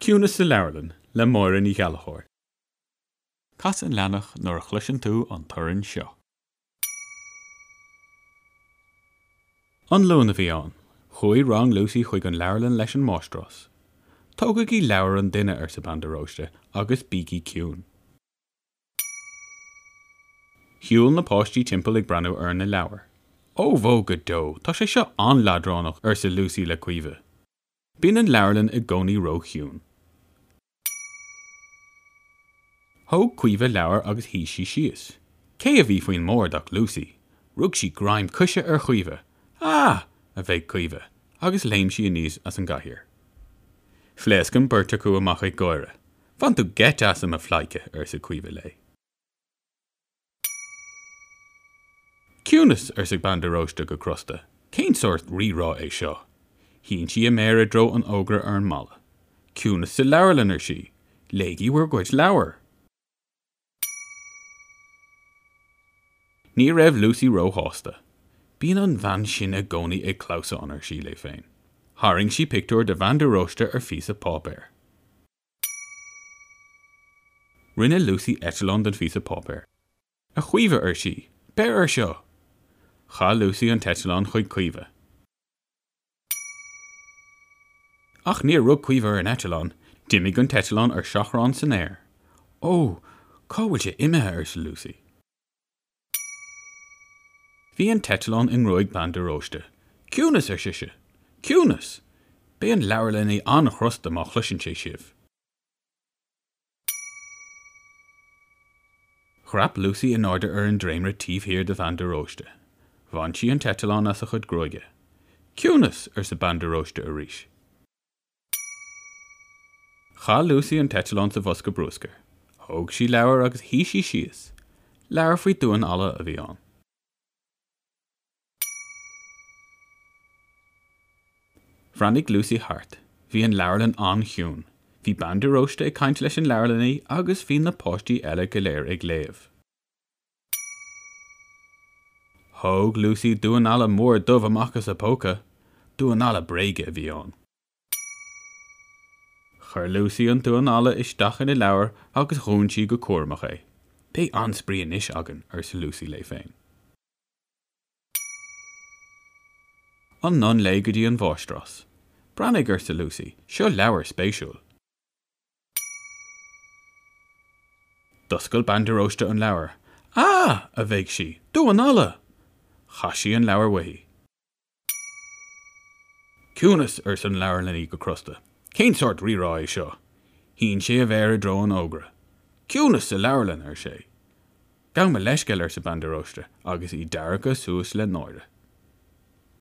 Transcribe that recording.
Ciúnas sa Leabharlann le Máire Ní Ghallchóir. Cas an leathanach nuair a chloiseann tú an torann seo. An Luan a bhí ann. Chuaigh rang Lucy chuig an leabharlann leis an máistreás. Tógaigí leabhar an duine, arsa Bean de Róiste, agus bígí ciúin. Shiúil na páistí timpeall ag breathnú ar na leabhair. Ó bhó go deo, tá sé seo an-leadránach, arsa Lucy le Caoimhe. Bíonn an leabharlann i gcónaí ró-chiúin. Thóg Caoimhe leabhar agus shuigh sí síos. Cé a bhí faoin mbord ach Lucy. Rug sí greim coise ar Chaoimhe. Ah! a bhéic Caoimhe, agus léim sí aníos as an gcathaoir. Phléasc an bheirt acu amach ag gáire. Bhain tú geit asam, a phleidhce, arsa Caoimhe léi. Ciúnas! arsa Bean de Róiste go crosta. Cén sórt rírá é seo? Shín sí a méar i dtreo an fhógra ar an mballa. Ciúnas sa leabharlann, ar sí. Léigí bhur gcuid leabhar! Ní raibh Lucy róshásta. Bíonn an bhean sin i gcónaí ag clamhsán, ar sí léi féin. Tharraing sí pictiúr de Bhean de Róiste ar phíosa páipéir. Rinne Lucy eitleán den phíosa páipéir. A Chaoimhe, ar sí, beir air seo! Chaith Lucy an t-eitleán chuig Caoimhe. Ach níor rug Caoimhe ar an eitleán, d'imigh an t-eitleán ar seachrán san aer. Ó, cá bhfuil sé imithe? arsa Lucy. Bhí an t-eitleán i ngruaig Bean de Róiste. Ciúnas! ar sise. Ciúnas! Beidh an leabharlannaí an-chrosta má chloiseann sé sibh. Dhreap Lucy in airde ar an dréimire taobh thiar de Bhean de Róiste. Bhain sí an t-eitleán as a chuid gruaige. Ciúnas! arsa Bean de Róiste arís. Chaith Lucy an t-eitleán sa bhosca bruscair. Thóg sí leabhar agus shuigh sí síos. Leabhar faoi damhán alla a bhí ann. Bhreathnaigh Lucy thart. Bhí an leabharlann an-chiúin. Bhí Bean de Róiste ag caint leis an leabharlannaí agus bhí na páistí eile go léir ag léamh. Thóg Lucy damhán alla mór dubh amach as a póca. Damhán alla bréige a bhí ann. Chuir Lucy an damhán alla isteach ina leabhar agus dhún sí go cúramach é. Beidh an-spraoi anois againn, arsa Lucy léi féin. Anonn léi go dtí an mháistreás. Breathnaigh, arsa Lucy, seo leabhar spéisiúil. D'oscail Bean de Róiste an leabhar. Ah! a bhéic sí, damhán alla! Chaith sí an leabhar uaithi. Ciúnas! arsa an leabharlannaí go crosta. Cén sórt rírá é seo? Shín sé a mhéar i dtreo an fhógra. Ciúnas sa leabharlann! ar sé. Gabh mo leithscéal, arsa Bean de Róiste, agus í deargtha suas le náire.